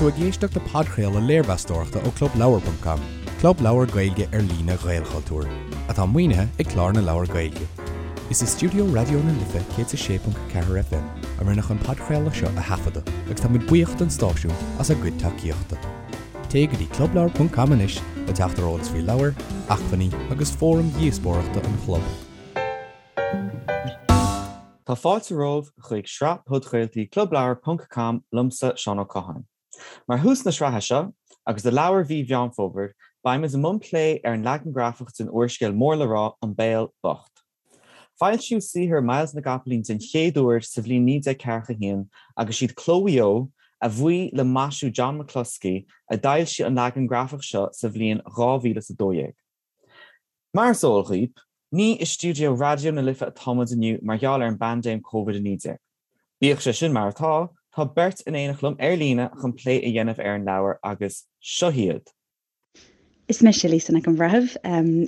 tú ag éisteacht le podchraoladh léirmheastóireachta ó ClubLeabhar.com, club leabhar Gaeilge ar líne Ghaelchultúir, atá maoinithe ag Clár na Leabhar Gaeilge. Is i stiúideo Raidió na Life 106.4 FM a rinneadh an podchraoladh seo a thaifeadadh agus tá muid buíoch don stáisiún as a gcuid tacaíochta. Téigh go dtí clubleabhar.com anois le teacht ar eolas faoi leabhair, acmhainní agus fóraim dhíospóireachta an chlub. Tá fáilte romhaibh chuig sraith podchraoltaí Clubleabhar ponc com liomsa, Seán Ó Catháin. Mar thús na sraithe seo, agus do leabhar mhí Mheán Fómhair, beimid i mbun plé ar an leagan grafach den úrscéal mór le rá An Béal Bocht. Foilsíodh saothar Myles na gCopaleen den chéad uair sa bhliain 1941 agus siad Cló Mhaigh Eo, a bhuí le maisiú John McCloskey, a d'fhoilsigh an leagan grafach seo sa bhliain 2012. Mar is eol dhaoib, ní i stiúideo Raidió na Life atá muid inniu mar gheall ar an bpaindéim Covid-19. Bíodh sé sin mar atá, tá beirt in éineacht liom ar líne chun plé a dhéanamh ar an leabhar agus seo hiad. Is mise Lisa Nic an Bhreithimh.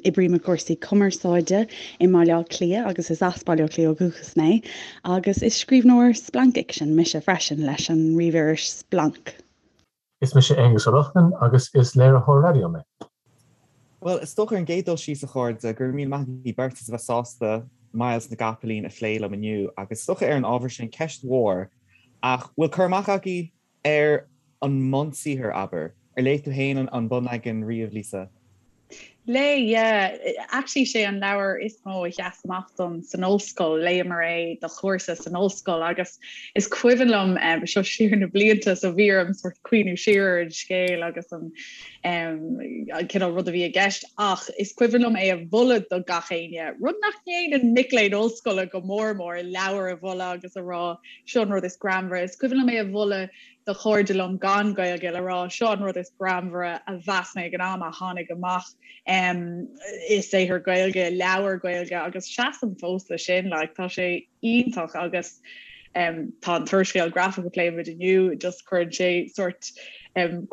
Oibrím i gcúrsaí cumarsáide i mBaile Átha Cliath agus is as Baile Átha Cliath ó dhúchas mé agus is scríbhneoir splancfhicsin mise freisin leis an ríomhiris Splanc. Is mise Aonghus Ó Lochlainn agus is léiritheoir raidió mé. Bhuel, is dócha ar an gcéad dul síos, a chairde, go raibh míle maith agaibh beirt as a bheith sásta Myles na gCopaleen a phlé liom inniu agus is dócha ar an ábhar sin, ceist mhór, ach bhfuil cur amach agaibh ar an mbunsaothar, abair? Ar léigh tú féin an bunleagan riamh, Lisa? Léigh, yeah. Actually sé an leabhar is mó a sheas amach dom san ollscoil. Léamar é do chúrsa san ollscoil agus is cuimhin liom, seo siar na blianta, so bhí orm sort cuimhniú siar ar an scéal agus an cineál rud a bhí i gceist ach is cuimhin liom é a mholadh do gach éinne, rud nach ndéanann mic léinn ollscoile go mór mór, leabhar a mholadh agus a rá seo an rud is greannmhaire. Is cuimhin liom é a mholadh do chairde liom gan Gaeilge le rá seo an rud is greannmhaire a mheas mé ag an am a tháinig amach i saothar Gaeilge, leabhar Gaeilge agus seasaim fós le sin, like tá sé iontach agus tá an t-úrscéal grafach a pléimid inniu just cuireann sé sort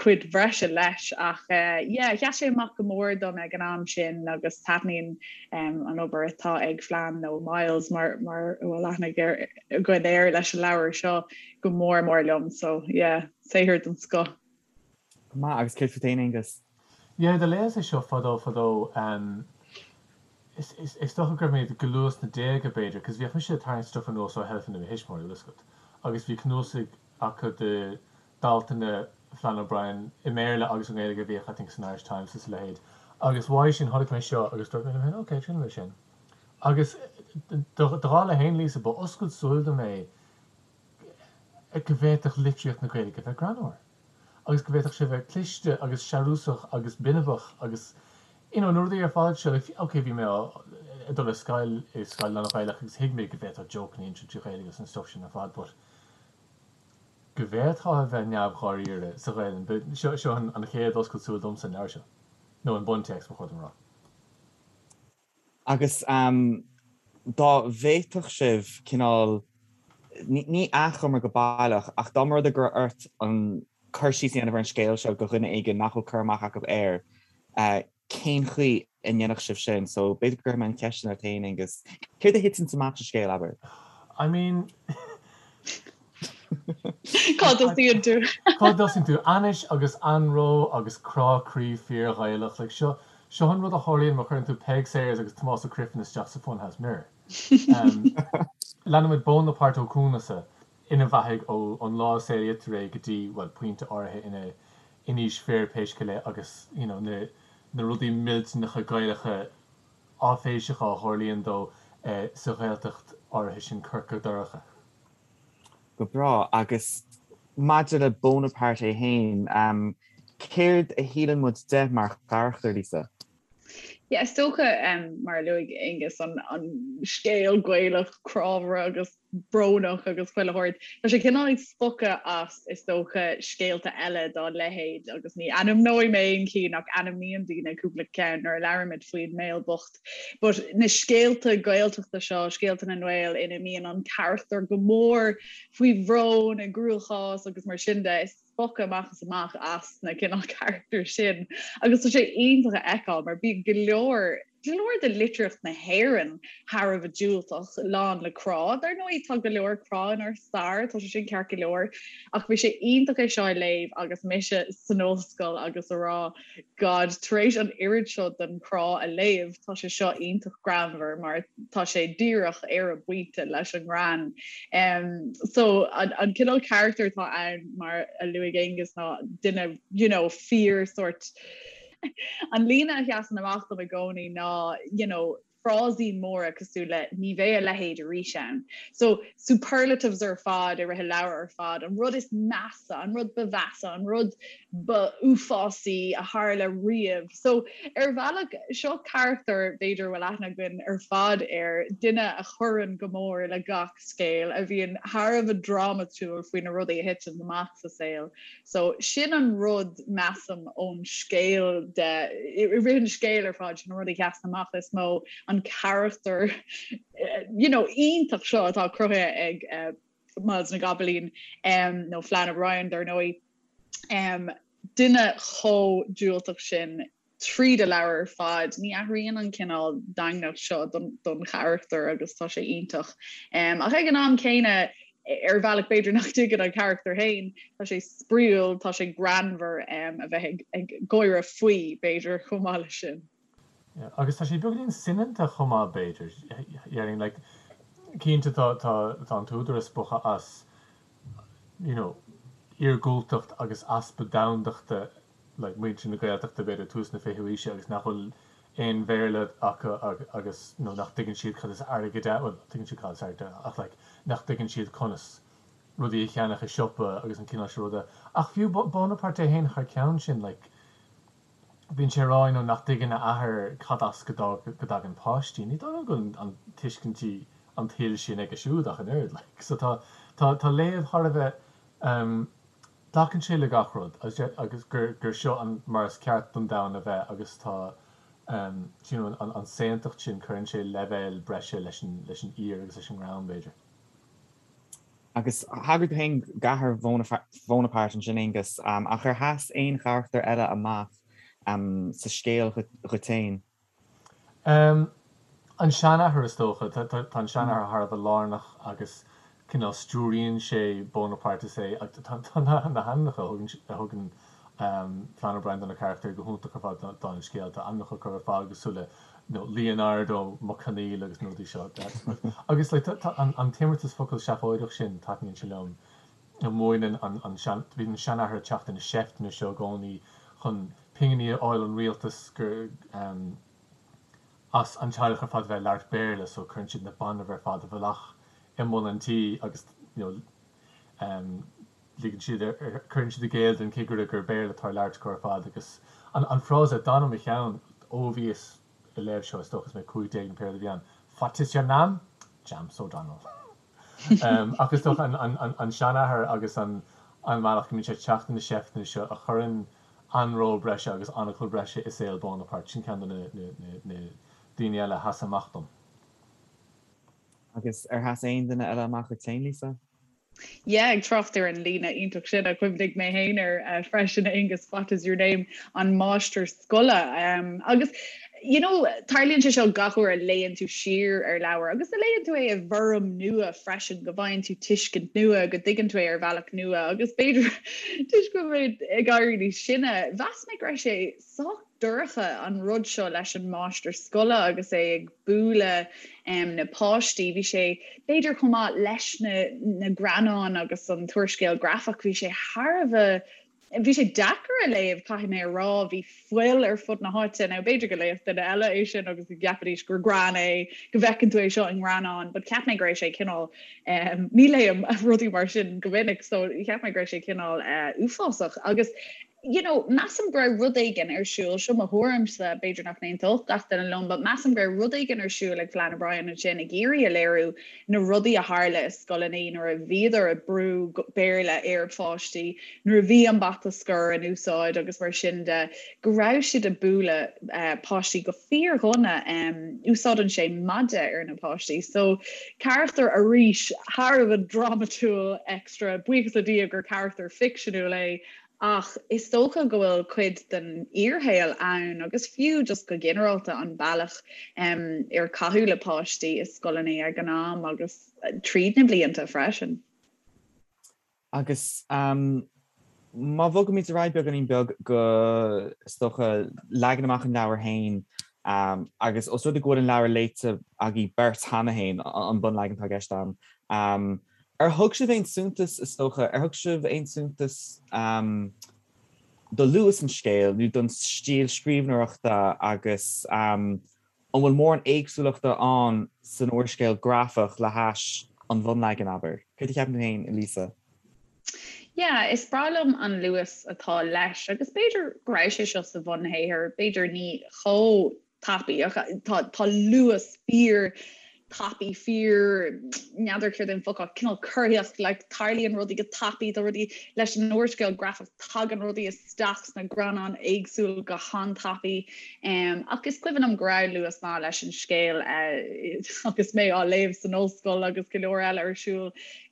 cuid bhreise leis ach yeah sheas sé amach go mór dom ag an am sin agus taitníonn an obair atá ag Flann nó Myles mar mar a bhfuil aithne againn air leis an leabhar seo. go mór mór liom so yeah saothar den scoth. Go maith, agus céard fút fhéin Aonghus? Yeah do léas é seo fadó fadó ehm is is is dócha go raibh mé go luath sna déaga b'fhéidir cos bhíodh mise ag tarraingt stuff anuas ó sheilfeanna mo thuismitheoirí bhfuil fhios agat agus bhí cnuasaigh acu de d'altanna Flann O'Brien i mBéarla agus i nGaeilge a bhíodh I think san Irish Times is a leithéid agus uaidh sin chonaic mé seo agus dúirt mé liom féin ok triailfidh mé sin agus do dhála fhéin Lisa ba oscailt súil dom é go bhféadfadh litríocht na Gaeilge bheith greannmhar agus go bhféadfadh sé bheith cliste agus searúsach agus binibeach agus you know na rudaí ar fad seo like ok bhí mé ag dul ar scoil i scoil lán-Ghaelach agus thuig mé go bhféadfá jokeanna a insint trí Ghaeilge agus an stuff sin ar fad but go bhféadfá a bheith neamh-dháiríre sa Ghaelainn seo seo an chéad oscailt súl domsa an leabhar seo nó an buntéacs ba chóir dom a rá. Agus dá bhféadfadh sibh cineál, ní achoimre go baileach, ach dá mba rud é go raibh ort an cur síos a dhéanamh ar an scéal seo do dhuine éigin nach bhfuil cur amach acu air, cén chaoi a ndéanfadh sibh sin? So b'fhéidir go gcuirfidh mé an cheist sin ort féin, Aonghus. Céard a thiteanns amach sa scéal, abair? I mean. Cá dtosaíonn tú? Cá dtosaíonn tú? Ainnis agus anró agus crá croí fíor-Ghaelach. Like, seo, seo an rud a tharlaíonn má chuireann tú Peig Sayers agus Tomás Ó Criomhthain isteach sa Funhouse Mirror. Leanaimid Bónapárt Ó Coanasa ina bheathaidh ó ón lá a saolaítear é go dtí, bhuel, pointe áirithe ina in aois fir pé scéal é agus, you know, na, na rudaí millteanacha Gaelacha áiféiseacha a tharlaíonn dó sa Ghaeltacht áirithe sin Corca Dorcha. Go breá. Agus maidir le Bonaparte é féin, céard a shíleann muid de mar charachtar, Lisa? Yeah, is dócha, mar a luaigh Aonghus, an scéal Gaelach crábhaire agus brónach agus chuile shórt. Tá sé cineál ag spochadh as, is dócha, scéalta eile dá leithéid agus ní ainmneoidh mé aon chinn ach ainmníonn daoine cúpla ceann nuair a labhraímid faoin mBéal Bocht. But na scéalta Gaeltachta seo, scéalta na nGael ina mbíonn an carachtar go mór faoi bhrón, i gcruachás agus mar sin de, is spochadh amach is amach as na cineál carachtair sin. Agus tá sé iontach a fheiceáil mar bíonn go leor. go leor de litríocht na hÉireann thar a bheith diúltach, lán le crá. Dar ndóigh, tá go leor crá inár stair, tá sé sin ceart go leor, ach bhí sé iontach é seo a léamh agus mise san ollscoil agus a rá, God, tar éis an oiread seo den chrá a léamh, tá sé seo iontach greannmhar mar tá sé díreach ar an bpointe leis an ngreann. Um, so an, an cineál carachtar atá ann mar a luaigh Aonghus ná duine, you know, fíor sort An líne a sheasann amach dom i gcónaí ná, you know, frásaí móra cosúil le 'ní bheidh a leithéid arís ann'. So, superlatives ar fad i rith an leabhair ar fad, an rud is measa, an rud ba mheasa, an rud ba uafásaí a tharla riamh. So, ar bhealach, seo carachtar, b'fhéidir, a bhfuil aithne againn ar fad air, duine a chuireann go mór le gach scéal, a bhíonn thar a bheith drámatúil faoi na rudaí a thiteann amach sa saol. So, sin an rud, measaim, ón scéal de, i rith an scéil ar fad, sin an rud a sheasann amach is mó, an carachtar, you know, iontach seo atá cruthaithe ag uh, Myles na gCopaleen, um, nó Flann O'Brien, dar ndóigh, um, duine chomh diúltach sin tríd an leabhar ar fad. Ní athraíonn an cineál daingneacht seo don charachtar agus tá sé iontach. Ach ag an am céanna, ar bhealach b'fhéidir nach dtuigeann an carachtar féin, tá sé spraíúil, tá sé greannmhar a bheith ag gáire faoi, b'fhéidir, chomh maith leis sin. Agus tá sé beagáinín soineanta chomh maith, b'fhéidir. Déarfainn, like, cinnte tá tá an t-údar ag spochadh as, you know, iargúltacht agus easpa domhandachta like muintir na Gaeltachta b'fhéidir tús na fichiú aoise agus nach bhfuil aon Bhéarla acu agus nó nach dtuigeann siad cad is airgead ann, bhuel tuigeann siad cad is airgead ann ach like nach dtuigeann siad conas rudaí a cheannach i siopa agus an cineál sin ruda. Ach fiú Bonaparte é féin thar ceann sin like bíonn sé ag rá you know nach dtuigeann a athair cad as go dtagann páistí. Ní dóigh liom go bhfuil an tuiscintí an tsaoil sin aige siúd ach an oiread like. So tá tá tá léamh thar a bheith um Glacann sé le gach rud agus gur seo an mar is ceart don domhan a bheith agus tá you know an saontacht sin, cuireann sé leibhéal breise leis an leis an aoir agus leis an ngreann, b'fhéidir. Agus thagair tú féin d'athair Bhonaparte ansin, Aonghus, ach ar sheas aon charachtar eile amach sa scéal dhuit féin? An seanathair, is dócha. Tá an seanathair thar a bheith lárnach agus cineál stiúraíonn sé Bonaparte is é tá na hainmneacha a thugann Flann O'Brien do na carachtair go hiontach ar fad don scéal. Tá ainmneacha acu ar fad cosúil le Leonardo Mac Conaill agus na rudaí seo. Agus like tá an t-imeartas focal seafóideach sin, taitníonn sé liom. Múineann an sean, bíonn an seanathair ag teacht ar na seifteanna seo i gcónaí chun pinginí a fháil ón rialtas gur as an teaghlach ar fad a bheith ag labhairt Béarla so cuireann siad na bainbh ar fad i bhfolach i mbun an tí agus you know ligeann siad cuireann siad i gcéill don chigire gur Béarla atá á labhairt acu ar fad agus an an frása a d'fhan i mo cheann ó bhíos ag léamh seo is dócha is mé 15 nó pé rud a bhí ann What is your name? James O'Donnell. Ach is dócha an seanathair agus an bealach go mbíonn sé ag teacht ar na seifteanna seo a chuireann anró breise agus anacal breise i saol Bonaparte, sin ceann de na daoine eile a sheas amach dom. Agus ar sheas aon duine eile amach duit féin, Lisa? Yeah, ag trácht ar an líne iontach sin a chuimhnigh mé féin air freisin, Aonghus, what is your name? An máistir scoile. Agus you know, tarlaíonn sé seo gach uair a léann tú siar ar leabhar agus a léann tú é i bhfoirm nua freisin, go bhfaigheann tú tuiscint nua, go dtuigeann tú é ar bhealach nua agus b'fhéidir toisc go bhfuil mé ag éirí níos sine, mheas mé go raibh sé sách dorcha an rud seo leis an máistir scoile agus é ag bualadh na páistí. Bhí sé b'fhéidir chomh maith leis na na greannáin agus an t-úrscéal grafach, bhí sé thar a bheith Bhí sé deacair a léamh, caithfidh mé a rá. Bhí fuil ar fud na háite. Now, b'fhéidir go léifeadh duine eile é sin agus go gceapfaidís gur greann é, go bhfeiceann tú é seo i ngreannán, but cheap mé go raibh sé cineál, ní léim rudaí mar sin go minic, so cheap mé go raibh sé cineál uafásach. Agus, you know, measaim go raibh rud éigin ar siúl, seo mo thuairimse, b'fhéidir nach n-aontódh gach duine liom, but measaim go raibh rud éigin ar siúl ag Flann O'Brien ansin ag iarraidh a léiriú na rudaí a tharla i scoileanna nuair a bhíodar ag brú Béarla ar pháistí, nuair a bhí an bata scoir in úsáid agus mar sin de, go raibh siad ag bualadh páistí go fíordhona. Úsáideann sé maide ar na páistí. So, carachtar arís thar a bheith drámatúil extra, buíochas le Dia gur carachtar ficseanúil é. Ach is dócha go bhfuil cuid den fhíorshaol ann agus fiú just go ginearálta an bealach ar caitheadh le páistí i scoileanna ag an am agus tríd na blianta freisin. Agus má bhogaimid ar aghaidh beagáinín beag go, is dócha, leagan amach an leabhair féin, agus os rud é go bhfuil an leabhar léite agaibh beirt cheana féin, an bunleagan atá i gceist agam, ar thug sibh aon suntas, is dócha, ar thug sibh aon suntas do luas an scéil nó don stíl scríbhneoireachta agus An bhfuil mórán éagsúlachta ann san úrscéal grafach le hais an bhunleagain, abair? Céard a cheapann tú féin, a Lisa? Yeah, is breá liom an luas atá leis agus b'fhéidir go raibh sé seo sa bhunshaothar, b'fhéidir ní chomh tapaidh ach tá tá luas fíor tapaidh, fíor, n'fheadar céard é an focal, cineál corraitheach, like tarlaíonn rudaí go tapaidh, tá rudaí leis an úrscéal grafach, tagann rudaí isteach sna greannáin éagsúil go han-tapaidh. Um, ach is cuimhin liom go raibh luas maith leis an scéal uh, agus mé á léamh san ollscoil agus go leor eile ar siúl.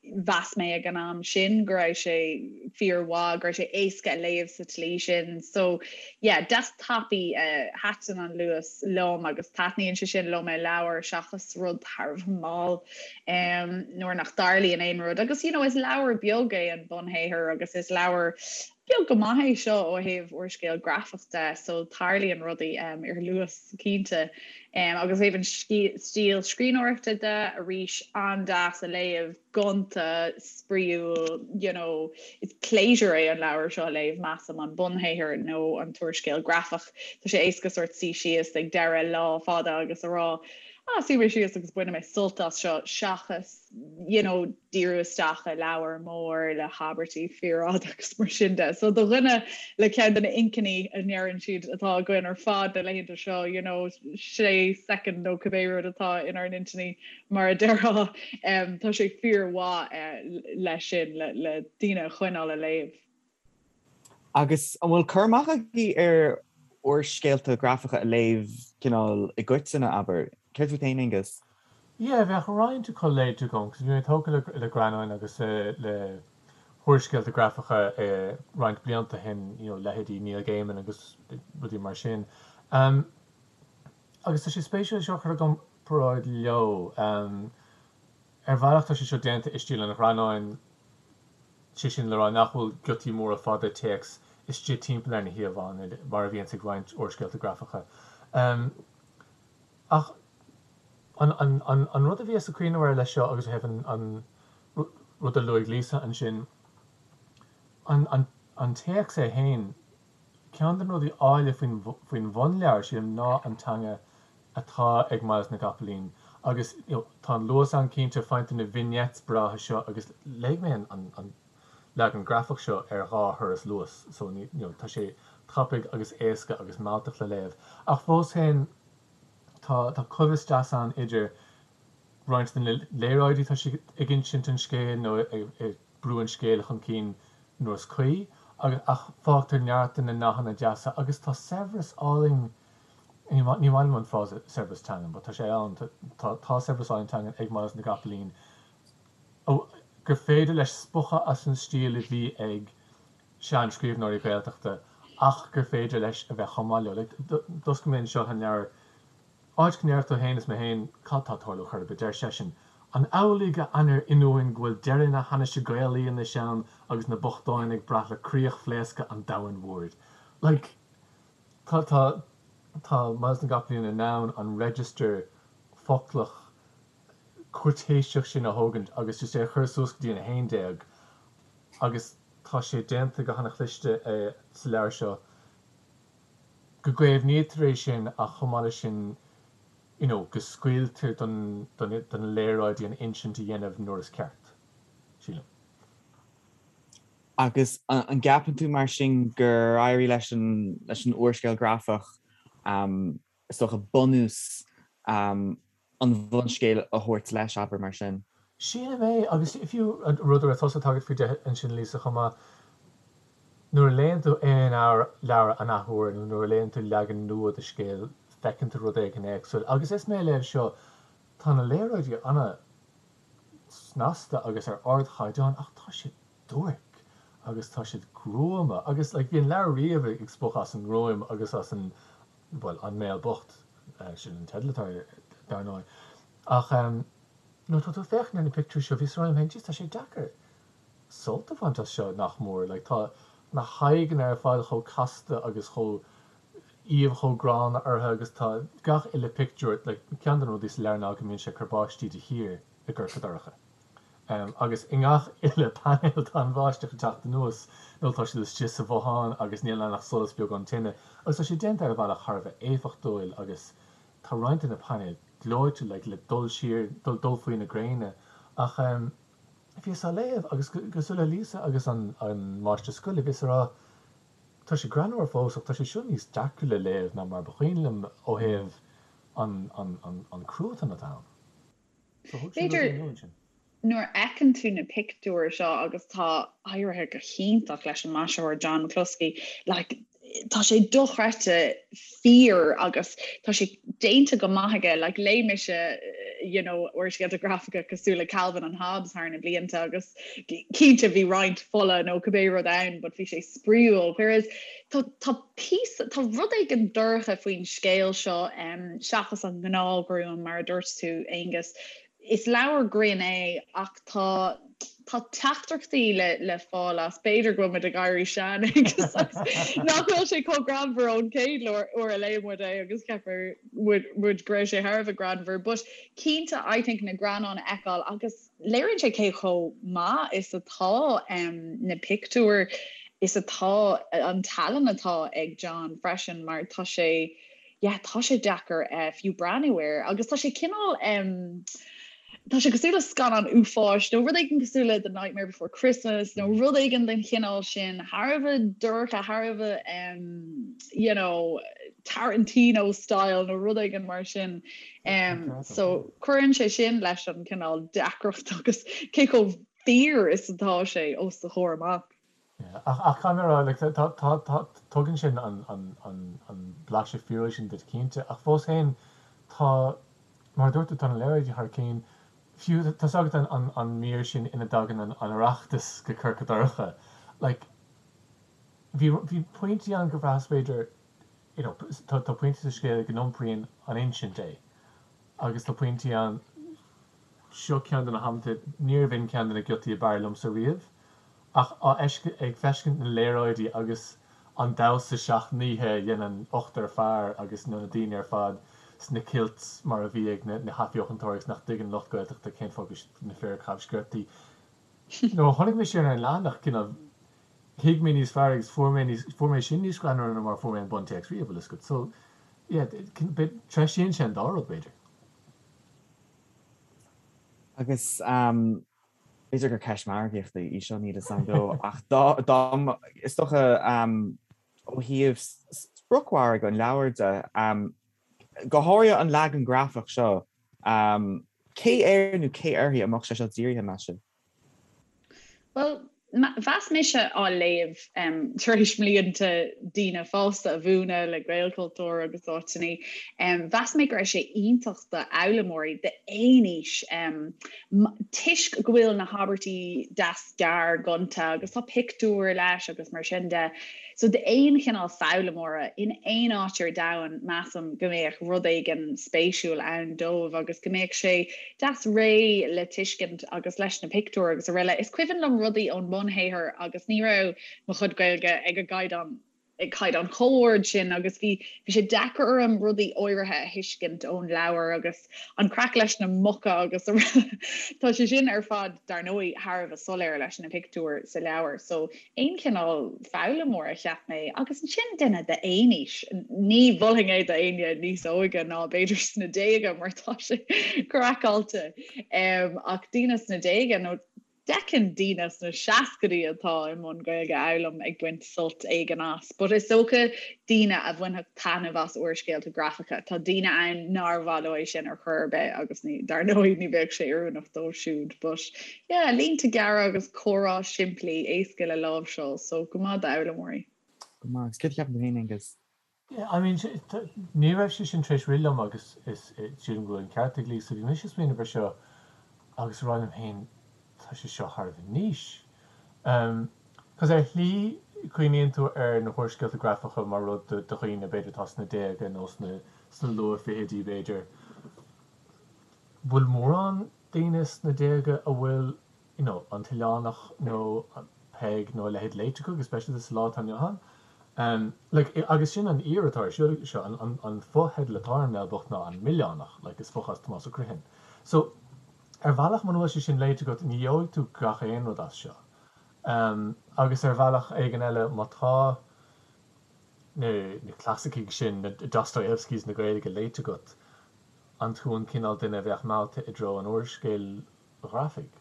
Mheas mé ag an am sin go raibh sé fíormhaith, go raibh sé éasca a léamh sa tslí sin. So yeah, deas tapaidh, thaitin an luas liom agus taitníonn sé sin liom i leabhar seachas rud thar a bheith mall nuair nach dtarlaíonn aon rud. Agus you know, is leabhar beag é an bunshaothar agus is leabhar beag go maith é seo ó thaobh úrscéal grafach de, so tarlaíonn rudaí ar luas cinnte. Agus ó thaobh an stíl scríbhneoireachta de, arís, an-deas a léamh, gonta, spraíúil, you know, is pléisiúr é an leabhar seo a léamh, measaim, an bunshaothar nó an t-úrscéal grafach. Tá sé éasca sórt suí síos ag deireadh lá fada agus a rá, ah, suífidh mé síos agus bainfidh mé sult as seo, seachas you know, díriú isteach i leabhar mór le habairtí fíorfhada agus mar sin de. So do dhuine le ceann de na inchinní a ndeireann siad atá againn ar fad na laethanta seo, you know, sé soicind nó cibé rud atá inár n-intinní mar a déarfá, um, tá sé fíormhaith uh, leis sin le, le daoine a choinneáil ag léamh. Agus an bhfuil cur amach agaibh ar úrscéalta grafacha a léamh cineál i gcoitinne, abair? Céard fút féin, Aonghus? Yeah, bheadh roinnt acu léite agam, 'cause bhí mé tógtha le le greannáin agus le húrscéalta grafacha roinnt blianta ó shin, you know, leithéidí Neil Gaiman agus rudaí mar sin. Agus tá sé spéisiúil é seo a chur i gcomparáid leo. Ar bhealach tá sé seo déanta i stíl an ghreannáin, sé sin le rá nach bhfuil giotaí móra fada téacs istigh timpeall ar na híomhánna mar a bhíonns ag roinnt úrscéalta grafacha. Ach an rud a bhíos ag cuimhneamh air leis seo agus ó thaobh an rud a luaigh Lisa ansin, an téacs é féin, Ceann de na rudaí áille faoin bhunleabhar, sílim, ná an teanga atá ag Myles na gCopaleen. Agus you know tá an luas ann cinnte, faigheann tú na vignettes breátha seo agus léigh mé an leagan grafach seo ar dhá thuras Luas so you know tá sé tapaidh agus éasca agus mealltach le léamh. Ach fós féin tá tá coibhéis deas ann idir roinnt de na léaráidí tá sé ag insint an scéil nó ag brú an scéil chun cinn nuair is cuí, agus ach fágtar neart de na nathanna deasa agus tá saibhreas álainn, ní maith liom an frása saibhreas teangan but tá sé ann, tá tá saibhreas álainn teangan ag Myles na gCopaleen gur féidir leis spochadh as an stíl a bhí ag sean-scríbhneoirí Gaeltachta ach gur féidir leis a bheith chomh maith leo. Like, d'oscail mé anseo an leabhar Áit go ndéarfadh tú féin is mé féin cad tá ag tarlú chor ar bith, deir seisean, An amhlaidh a ainnir ionúin go bhfuil deireadh na hainnise Gaelaí anois ann agus na bochtáin ag brath le críoch-phléascadh an domhain mhóir? Like, tá, tá, tá Myles na gCopaleen in ann an register foclach cúirtéiseach sin a thógaint agus just é a chur suas go dtí an 11 agus tá sé déanta go hana-chliste sa leabhar seo. go gcaomhnaítear é sin ach chomh maith leis sin you know go scaoiltear don don don léaráidí an insint a dhéanamh nuair is ceart, sílim. Agus an gceapann tú mar sin gur éirigh leis an leis an úrscéal grafach is dócha bunús an bhunscéil a thabhairt leis, abair, mar sin? Sílim é, agus fiú an rud a raibh tusa ag tagairt faoi de ansin, Lisa, chomh maith, nuair a léann tú aon leabhar an athuair nó nuair a léann tú leagan nua de scéal, feiceann tú rud éigin éagsúil. Agus is mé ag léamh seo, tá na léaráidí an-snasta agus ar ardchaighdeán ach tá siad duairc. agus tá siad gruama agus like bhí an leabhar riamh ag spochadh as an ngruaim agus as an, bhuel, an Béal Bocht, sin an teideal atá air dar ndóigh. Ach nuair atá tú ag féachaint ar na pictiúirí seo, bhíos ag rá liom féin, jeez tá sé deacair sult a bhaint as seo nach mór, like tá na haghaidheanna ar fad chomh casta agus chomh aoibh chomh gránna orthu agus tá gach uile pictiúr, like ceann de na rudaí sa leabhar ná go mbíonn sé ag cur báistí de shíor i gCorca Dorcha. Agus i ngach uile painéal tá an bháisteach ag teacht anuas nó tá siad istigh sa bhothán agus níl ann ach solas beag ón tine agus tá sé déanta ar bhealach thar a bheith éifeachtúil agus tá roinnt de na painéil gleoite like le dul siar, dul faoi na gréine ach bhíos á léamh agus cosúil le Lisa agus an máistir scoile bhíos ag rá tá sé greannmhar fós ach tá sé seo níos deacra le léamh ná mar ba chuimhin liom ó thaobh an cruatan atá ann. B'fhéidir nuair a fheiceann tú na pictiúir seo agus tá éirithe go hiontach leis an maisitheoir John McCluskey, like, tá sé dochreidte fíor agus tá sé déanta go maith aige, like, léigh mise you know, úrscéalta grafacha cosúil le Calvin and Hobbes thar na blianta agus cinnte bhí roinnt fola nó cibé rud ann but bhí sé spraíúil, whereas tá, tá píosa, tá rud éigin dorcha faoin scéal seo, seachas an ngnáthghruaim, mar a dúirt tú, Aonghus. Is leabhar grinn é ach tá, tá teachtaireachtaí le, le fáil as. B'fhéidir go bhfuil muid ag éirí sean, Aonghus, agus nach bhfuil sé chomh greannmhar ón chéad uair a léigh muid é agus cheap muid, muid go raibh sé thar a bheith greannmhar. But cinnte, I think na greannáin a fheiceáil agus, Léiríonn sé cé chomh maith is atá na pictiúir, is atá an tallann atá ag John freisin mar tá sé, yeah, tá sé deacair fiú breathnú air agus tá sé cineál, tá sé cosúil le scannán uafáis nó rud éigin cosúil le The Nightmare Before Christmas nó rud éigin den chineál sin, thar a bheith dorcha, thar a bheith, you know, Tarantino style nó rud éigin mar sin. So cuireann sé sin leis an cineál deacracht agus cé chomh fíor is atá sé os do chomhair amach. Ach caithfidh mé a rá, like, tá, tá, tá, tugann sin an, an, an, an blaiseadh fíorúil sin duit cinnte, ach fós féin tá, mar a dúirt tú, tá na léaráidí thar cionn. Fiú, tá's agat an, an, an mír sin ina dtagann an, an Oireachtas go Corca Dorcha, like, bhí, bhí pointí ann gur bhraitheas b'fhéidir, you know, tá pointí sa scéal go n-iompraíonn an insint é agus tá pointí ann, seo ceann de na hamanta, níorbh in ceann de na giotaí ab fhearr liomsa riamh, ach á ag feiscint na léaráidí agus an damhsa seacht n-oíche a dhéanann ochtar fear agus na daoine ar fad sna kilts mar a bhí ag na hAthbheochantóirí agus nach dtuigeann lucht Gaeltachta cén fáth go bhfuil na fir ag caitheamh sciortaí. Nuair a chonaic mé sin ar an leathanach, cineál, thuig mé níos fearr agus fuair mé níos, fuair mé sin níos greannmhaire ná mar a fuair mé an buntéacs riamh, bhfuil fhios agat. So, yeah, treisíonn sé an dá rud, b'fhéidir. Agus b'fhéidir gur ceist margaíochta í seo, níl fhios agam, ach dá, dá, is dócha ó thaobh spriocmhargadh an leabhair de, go háirithe an leagan grafach seo, cé air nó cé uirthi a mbeadh sé seo dírithe, meas sibh? Bhuel, mheas mise á léamh tar éis mblianta daoine fásta a mhúineadh le Gaelchultúr agus áiteanna, mheas mé go raibh sé iontach d'fhoghlaimeoirí d'aon aois toisc go bhfuil na habairtí deas gearr gonta agus tá pictiúir leis agus mar sin de. So d'aon chineál foghlaimeora in aon áit ar domhan measaim go mbeadh rud éigin spéisiúil ann dóibh agus go mbeadh sé deas réidh le tuiscint agus leis na pictiúir agus araile. Is cuimhin liom rudaí ón mbunshaothar agus ní raibh mo chuid Gaeilge ag an gcaighdeán ag caighdeán chomh ard sin agus bhí bhí sé deacair orm rudaí áirithe a thuiscint ón leabhar agus an craic leis na muca agus araile. Tá sé sin ar fad dar ndóigh thar a bheith soiléir leis na pictiúir sa leabhar so aon chineál foghlaimeora, cheap mé, agus ansin duine d'aon aois. Ní mholfainn é d'éinne níos óige ná b'fhéidir sna déaga mar tá sé craiceáilte. Ach daoine sna déaga nó d'fheicfinn daoine sna seascaidí atá i mbun Gaeilge a fhoghlaim ag baint sult éigin as. But is dócha daoine a bhainfeadh taitneamh as úrscéalta grafacha. Tá daoine ann nár mhaith leo é sin ar chor ar bith agus ní, dar ndóigh ní bheadh sé oiriúnach dóibh siúd. But Yeah, línte gearra agus comhrá simplí, éasca le láimhseáil, so go maith d'fhoghlaimeoirí. Go maith. Agus céard a cheapann tú féin, Aengus? Yeah, I mean, ní raibh sé sin tar éis rith liom agus is sílim go bhfuil an ceart ag Lisa. Bhí mise ag smaoineamh ar seo agus ag rá liom féin, tá sé seo thar a bheith niche. Cos ar shlí cuimhníonn tú ar na húrscéalta grafacha mar rud do dhaoine b'fhéidir atá sna déaga nó sna sna luath-fhichidí b'fhéidir. Bhfuil mórán daoine sna déaga a bhfuil you know An tOileánach nó Peig nó a leithéid léite acu, go speisialta sa lá atá inniu ann? Um like agus sin an fhíor atá ar siúl seo, an an an fotheideal atá ar An Béal Bocht ná An Milleánach, like is fochás Tomás Ó Criomhthain. So ar bhealach muna bhfuil sé sin léite agat ní gheobhaidh tú gach aon rud as seo. Agus ar bhealach éigin eile, má tá na clasaicigh sin, na Dostoyevskys na Gaeilge léite agat, an tú an cineál duine a bheadh meallta i dtreo an úrscéil ghrafaigh?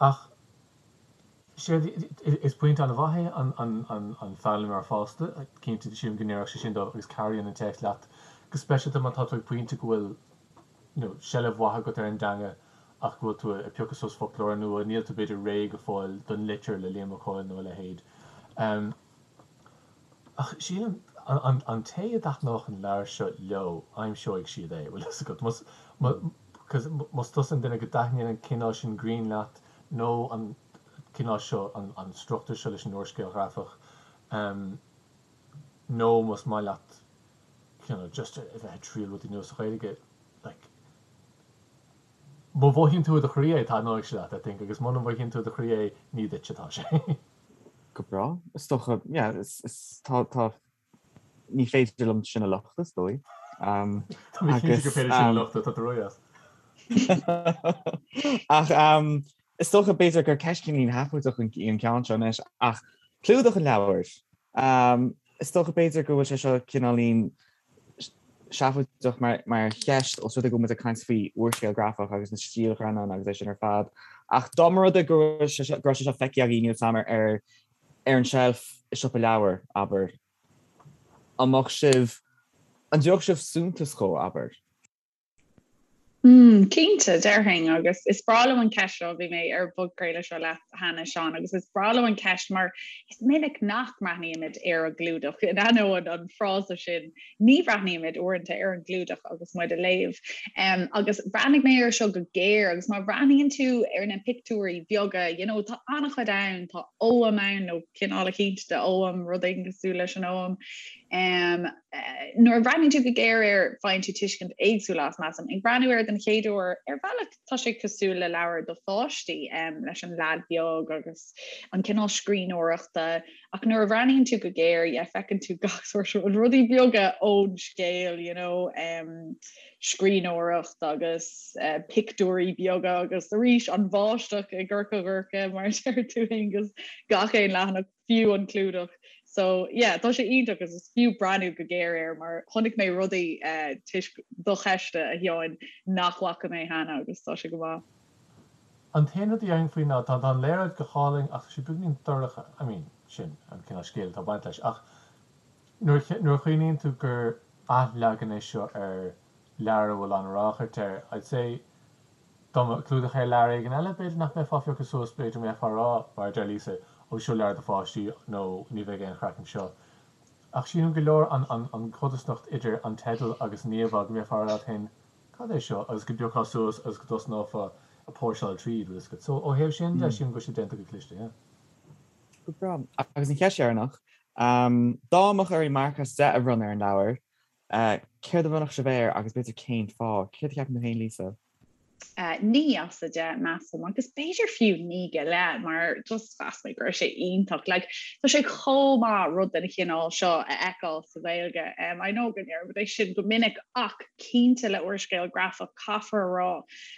Ach séard, is pointe an-mhaith é an foghlaimeoir fásta, cinnte, sílim go ndéarfadh sé sin dóibh agus cabhraíonn an téacs leat, go speisialta má tá tú ag pointe go bhfuil you know seilbh mhaith agat ar an dteanga ach go bhfuil tú ag piocadh suas foclóir nua, níl tú b'fhéidir réidh go fóill don litir le Liam Mac Cóil nó a leithéid. Ach sílim, an, an té a dtaitneodh an leabhar seo leo, aimseoidh siad é, bhfuil fhios agat. Más, cos más tusa an duine go dtaitníonn an cineál sin grinn leat nó an cineál seo, an, an struchtúr seo leis an úrscéal ghrafach, nó más maith leat you know, just a bheith ag triail rudaí nua sa Ghaeilge, like, má mhothaíonn tú i do chroí é, taitneoidh sé leat, I think, agus muna mhothaíonn tú i do chroí é, ní duit atá sé. Go breá. Is dócha, yeah, is, is, tá, tá, ní féidir liom sin a lochtadh, is dóigh. Um, Tá mé cinnte gur féidir sin a lochtadh, tá tú ródheas. Ach um, is dócha b'fhéidir gur ceist cineáilín sheafóideach an, an ceann seo anois, ach clúdach an leabhair. Um, is dócha b'fhéidir go bhfuil sé seo cineáilín seafóideach mar, mar cheist os rud é go bhfuil muid ag caint faoi úrscéal grafach agus na stílghreannáin agus é sin ar fad. Ach dá mba rud é go raibh sé seo, go raibh sé seo feicthe agaibh, níl 'fhios a'm, ar, ar an tseilf i siopa leabhar, abair, an mbeadh sibh, an dtabharfadh sibh suntas dhó, abair? Mm, cinnte, déarfainn, agus is breá liom an ceist seo, bhí mé ar an bpodchraoladh seo leat cheana, Seán, agus is breá liom an ceist mar is minic nach mbreathnaímid ar an gclúdach, in ainneoin an frása sin, ní bhreathnaímid uaireanta ar an gclúdach agus muid ag léamh. Um, agus bhreathnaigh mé air seo go géar agus má bhreathnaíonn tú ar na pictiúirí beaga, you know, tá an-chuid ann, tá ogham ann nó cineál eicínt de ogham, rud éigin cosúil leis an ogham. Um, Nuair a bhreathnaíonn tú go géar air, faigheann tú tuiscint éagsúil as, measaim. Ag breathnú air den chéad uair, ar bhealach tá sé cosúil le leabhar do pháistí, leis an leaid beag agus an cineál scríbhneoireachta, ach nuair a bhreathnaíonn tú go géar, yeah, feiceann tú gach sórt rudaí beaga ón scéal, you know, scríbhneoireacht agus pictiúirí beaga agus arís an bháisteach i gCorca Dhorcha, mar a deir tú, Aonghus, gach aon leathanach. fiú an clúdach. So yeah, tá sé iontach agus is fiú breathnú go géar air mar chonaic mé rudaí eh, toisc do cheiste, a Sheáin, nach bhfaca mé cheana agus tá sé go maith. An t-aon rud a dhéarfainn faoi ná tá an léaráid go hálainn ach tá sé beagainín dorcha, I mean, sin an cineál scéil atá ag baint leis ach nuair nuair a chuimhníonn tú gur athleagan é seo ar leabhar a bhfuil an-ráchairt air, I'd say Dá mbeadh clúdach ar leabhar éigin eile, b'fhéidir nach mbeifeá á phiocadh suas, b'fhéidir go mbeifeá ag rá, mar a deir Lisa, ó seo leabhar do pháistí nó ní bheidh aon chraic anseo. Ach sílim gur leor an chodarsnacht idir an teideal agus an íomhá go mbeifeá ag rá leat féin, cad é seo? agus go bpiocfá suas agus go dtosnófá ag póirseáil tríd, bhfuil fhios agat. So ó thaobh sin de, sílim go bhfuil sé déanta go cliste, yeah. Go breá. Agus an cheist dheireanach, dá mbeadh oraibh marc as 10 a bhronnadh ar an leabhar, Céard a bhronnfadh sibh air agus b'fhéidir cén fáth? Céard a cheapann tú féin, Lisa? 9 as 10, measaim, agus b'fhéidir fiú 9 go leith, mar just mheas mé go raibh sé iontach. Like, tá sé chomh maith rud den chineál seo a fheiceáil sa Ghaeilge. Um, I know go ndeirimid é sin go minic ach cinnte le úrscéal grafach caithfear a rá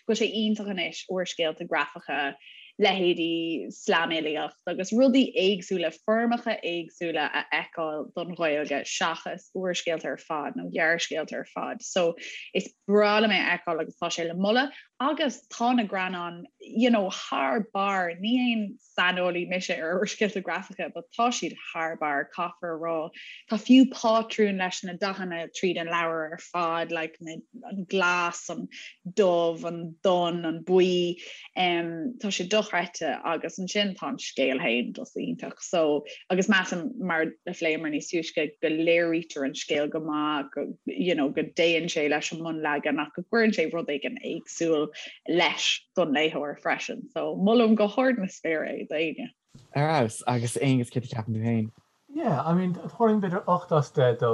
go bhfuil sé iontach anois úrscéalta grafacha leithéidí slamfhilíocht agus rudaí éagsúla, foirmeacha éagsúla a fheiceáil don Ghaeilge seachas úrscéalta ar fad nó gearrscéalta ar fad. So is breá liom é a fheiceáil agus tá sé le moladh agus tá na greannáin you know, thar barr, ní aon saineolaí mise ar úrscéalta grafacha but tá siad thar barr, caithfear a rá. Tá fiú pátrún leis na dathanna tríd an leabhar ar fad, like na, an glas, an dubh, an donn, an buí. Um, tá sé dochreidte agus ansin tá an scéal féin just iontach. So, agus measaim mar a phléamar níos túisce go léirítear an scéal go maith, go, you know, go dtéann sé leis an mbunleagan ach go gcuireann sé rud éigin éagsúil leis don léitheoir freisin. So, molaim go hard na spéire é d'éinne. Ar fheabhas, agus Aonghus céard a cheapann tú féin? Yeah, I mean, thabharfainn b'fhéidir 8 as 10 dó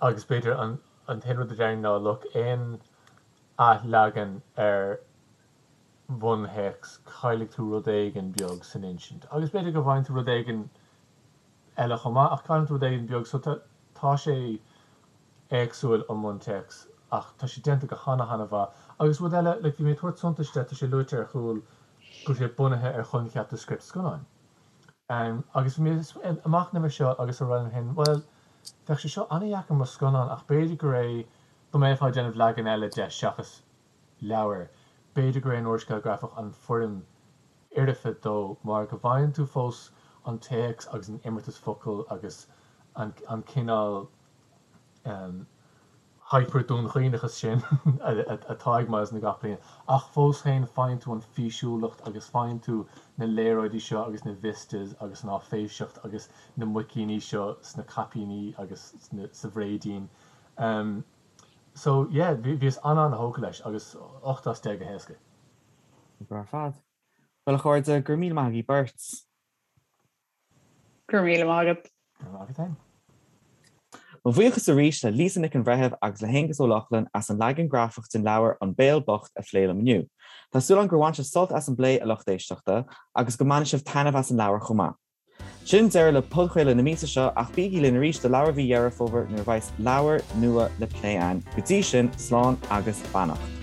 agus b'fhéidir an an t-aon rud a déarfainn ná look, aon athleagan ar bhunthéacs, caillfidh tú rud éigin beag san insint. Agus b'fhéidir go bhfaigheann tú rud éigin eile chomh maith ach cailleann tú rud éigin beag so tá tá sé éagsúil ón mbuntéacs ach tá sé déanta go hana hana mhaith. Agus rud eile, like bhí mé ag tabhairt suntais de, tá sé luaite ar chúl go bhfuil sé bunaithe ar choincheap de script scannáin. Agus bhí mé ag machnamh air seo agus ag rá liom féin, bhuel, bheadh sé seo an-dheacair mar scannán ach b'fhéidir gur é, dá mbeifeá ag déanamh leagan eile de seachas leabhar, b'fhéidir gur é an úrscéal grafach an foirm fhoirfe dó mar go bhfaigheann tú fós an téacs agus an imeartas focal agus an cineál hyper-Dún Chaoineachas sin atá ag Myles na gCopaleen ach fós féin faigheann tú an físiúlacht agus faigheann tú na léaráidí seo agus na vistas agus an áiféiseacht agus na muicíní seo sna caipíní agus sa bhréidín. So yeah, bhíos an-an-thógtha leis agus 8 as 10 go héasca. Go breá ar fad. Bhuel a chairde, go raibh míle maith agaibh beirt. Go raibh míle maith agat. Go raibh maith agat féin. Mo bhuíochas arís le Lisa Nic an Bhreithimh agus le hAonghus Ó Lochlainn as an leagan grafach den leabhar An Béal Bocht a phlé liom inniu. Tá súil agam gur bhain sibh sult as an bplé, a lucht éisteachta, agus go mbainfidh sibh taitneamh as an leabhar chomh maith. Sin deireadh le podchraoladh na míosa seo ach bígí linn arís do leabhar mhí Dheireadh Fómhair nuair a bheas leabhar nua le plé againn. Go dtí sin, slán agus beannacht.